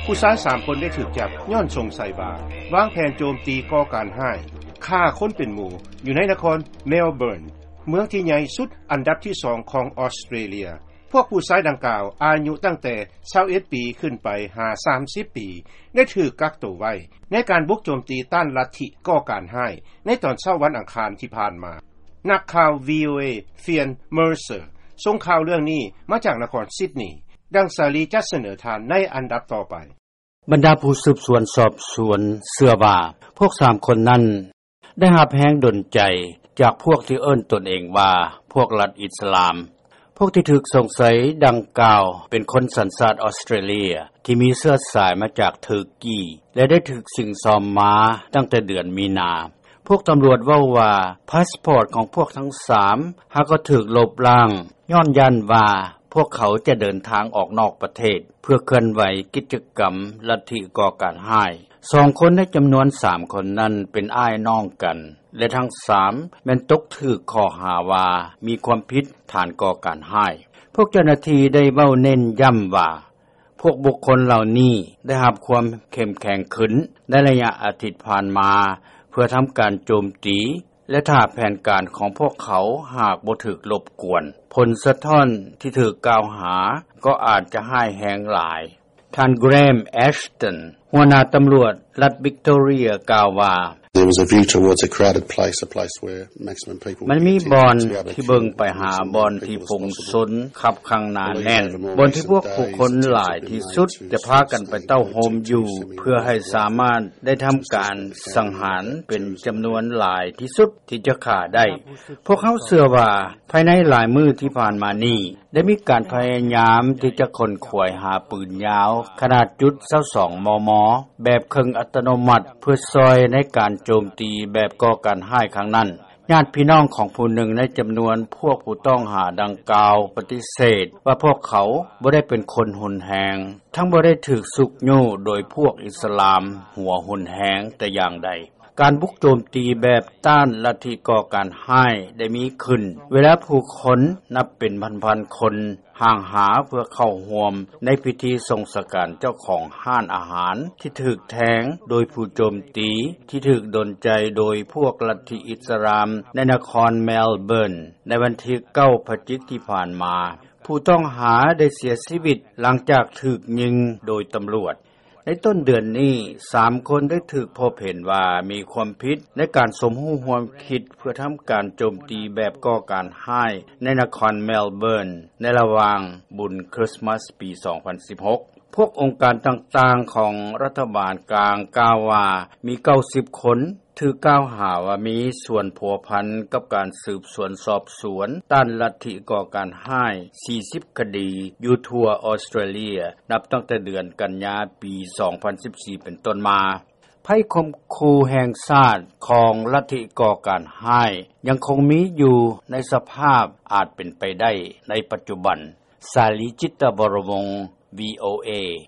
ຜູ້ຊາຍສາມຄົນໄດ້ຖືກຈັບ ຍ້ອນສົງໄສວ່າ ວາງແຜນໂຈມຕີກໍ່ການຮ້າຍ, ຂ້າຄົນເປັນໝູ່ ຢູ່ໃນນະຄອນເມລເບີນ ເມືອງທີ່ໃຫຍ່ສຸດອັນດັບທີສອງຂອງອອສເຕຣເລັຽ. ພວກຜູ້ຊາຍດັ່ງກ່າວ ອາຍຸຕັ້ງແຕ່ຊາວເອັດປີຂຶ້ນໄປຫາສາມສິບປີ ໄດ້ຖືກກັກໂຕໄວ້ ໃນການບຸກໂຈມຕີຕ້ານລັດທິກໍ່ການຮ້າຍ ໃນຕອນເຊົ້າວັນອັງຄານທີ່ຜ່ານມາ. ນັກຂ່າວ ວີໂອເອ Phian Mercer ສົ່ງຂ່າວເລື່ອງນີ້ມາຈາກນະຄອນຊິດນີ. ດັ່ງສາລີຈະສະເໜີທ່ານໃນອັນດັບຕໍ່ໄປ. ບັນດາຜູ້ສືບສວນສອບສວນເຊື່ອວ່າ ພວກສາມຄົນນັ້ນ ໄດ້ຮັບແຮງດົນໃຈຈາກພວກທີ່ເອີ້ນຕົນເອງວ່າ ພວກລັດອິດສະລາມ. ພວກທີ່ຖືກສົງໄສດັ່ງກ່າວ ເປັນຄົນສັນຊາດອອສເຕຣເລັຽ ທີ່ມີເຊື້ອສາຍມາຈາກເທີກີ ແລະ ໄດ້ຖືກຊິງຊອມມາຕັ້ງແຕ່ເດືອນມີນາ. ພວກຕຳຫຼວດເວົ້າວ່າ ພາສປອດຂອງພວກທັງສາມ ຫາກໍຖືກລົບລ້າງ ຍ້ອນຢ້ານວ່າ ພວກເຂົາຈະເດີນທາງອອກນອກປະເທດ ເພື່ອເຄື່ອນໄຫວກິດຈະກຳລັດທິກໍ່ການຮ້າຍ. ສອງຄົນໃນຈຳນວນສາມຄົນນັ້ນ ເປັນອ້າຍນ້ອງກັນ ແລະ ທັງສາມແມ່ນຕົກຖືກຂໍ້ຫາວ່າ ມີຄວາມຜິດຖານກໍ່ການຮ້າຍ. ພວກເຈົ້າໜ້າທີ່ໄດ້ເວົ້າເນັ້ນຢ້ຳວ່າ ພວກບຸກຄົນເຫຼົ່ານີ້ໄດ້ຮັບຄວາມເຂັ້ມແຂງຂຶ້ນໃນໄລຍະອາທິດຜ່ານມາ ເພື່ອທຳການໂຈມຕີ ແລະ ຖ້າແຜນການຂອງພວກເຂົາຫາກບໍ່ຖືກລົບກວນ, ຜົນສະທ້ອນທີ່ຖືກກ່າວຫາກໍອາດຈະຮ້າຍແຮງຫຼາຍ. ທ່ານ Graham Ashton ຫົວໜ້າຕຳຫຼວດລັດ Victoria ກ່າວວ່າ There was a view towards a crowded place, a place where maximum people ມັນມີບ່ອນທີ່ເບິ່ງໄປຫາບ່ອນທີ່ຝູງຊົນຄັບຂ້າງໜາແໜ້ນ, ບ່ອນທີ່ພວກຜູ້ຄົນຫຼາຍທີ່ສຸດຈະພາກັນໄປເຕົ້າໂຮມຢູ່ ເພື່ອໃຫ້ສາມາດໄດ້ທຳການສັງຫານເປັນຈຳນວນຫຼາຍທີ່ສຸດທີ່ຈະຂ້າໄດ້. ພວກເຮົາເຊື່ອວ່າ ພາຍໃນຫຼາຍມື້ທີ່ຜ່ານມານີ້ ໄດ້ມີການພະຍາຍາມທີ່ຈະຂົນຂວາຍຫາປືນຍາວຂະໜາດຈຸດຊາວສອງ ມມ ແບບເຄິ່ງອັດຕະໂນມັດ ເພື່ອຊ່ອຍໃນການໂຈມຕີແບບກໍ່ການຮ້າຍຄັ້ງນັ້ນ. ຍາດພີ່ນ້ອງຂອງຜູ້ໜຶ່ງໃນຈຳນວນພວກຜູ້ຕ້ອງຫາດັ່ງກ່າວປະຕິເສດວ່າພວກເຂົາບໍ່ໄດ້ເປັນຄົນຮຸນແຮງ, ທັງບໍ່ໄດ້ຖືກຊຸກຍູ້ໂດຍພວກອິດສະລາມຫົວຮຸນແຮງແຕ່ຢ່າງໃດ. ການບຸກໂຈມຕີແບບຕ້ານລັດທິກໍ່ການຮ້າຍໄດ້ມີຂຶ້ນ ເວລາຜູ້ຄົນນັບເປັນພັນໆຄົນ ຫ່າງຫາເພື່ອເຂົ້າຮ່ວມໃນພິທີສົ່ງສະການເຈົ້າຂອງຮ້ານອາຫານທີ່ຖືກແທງໂດຍຜູ້ໂຈມຕີ ທີ່ຖືກດົນໃຈໂດຍພວກລັດທິອິດສະລາມໃນນະຄອນເມລເບີນ ໃນວັນທີເກົ້າ ພະຈິກທີ່ຜ່ານມາ. ຜູ້ຕ້ອງຫາໄດ້ເສຍຊີວິດຫຼັງຈາກຖືກຍິງໂດຍຕຳຫຼວດ. ໃນຕົ້ນເດືອນນີ້, ສາມຄົນໄດ້ຖືກພົບເຫັນວ່າມີຄວາມຜິດໃນການສົມຮູ້ຮ່ວມຄິດເພື່ອທຳການໂຈມຕີແບບກໍ່ການຮ້າຍໃນນະຄອນເມລເບີນ ໃນລະຫວ່າງບຸນຄຣິສມາສປີສອງພັນສິບຫົກ. ພວກອົງການຕ່າງໆຂອງລັດຖະບານກາງກ່າວວ່າ ມີເກົ້າສິບຄົນ ຖືກກ່າວຫາວ່າມີສ່ວນພົວພັນກັບການສືບສວນສອບສວນຕ້ານລັດທິກໍ່ການຮ້າຍ ສີ່ສິບຄະດີ ຢູ່ທົ່ວອອສເຕຣເລັຽ ນັບຕັ້ງແຕ່ເດືອນກັນຍາປີສອງພັນສິບສີ່ເປັນຕົ້ນມາ. ໄພຂົ່ມຂູ່ແຫ່ງຊາດຂອງລັດທິກໍ່ການຮ້າຍຍັງຄົງມີຢູ່ໃນສະພາບອາດເປັນໄປໄດ້ໃນປັດຈຸບັນ. ສາລີ ຈິດຕະວໍລະວົງ ວີໂອເອ.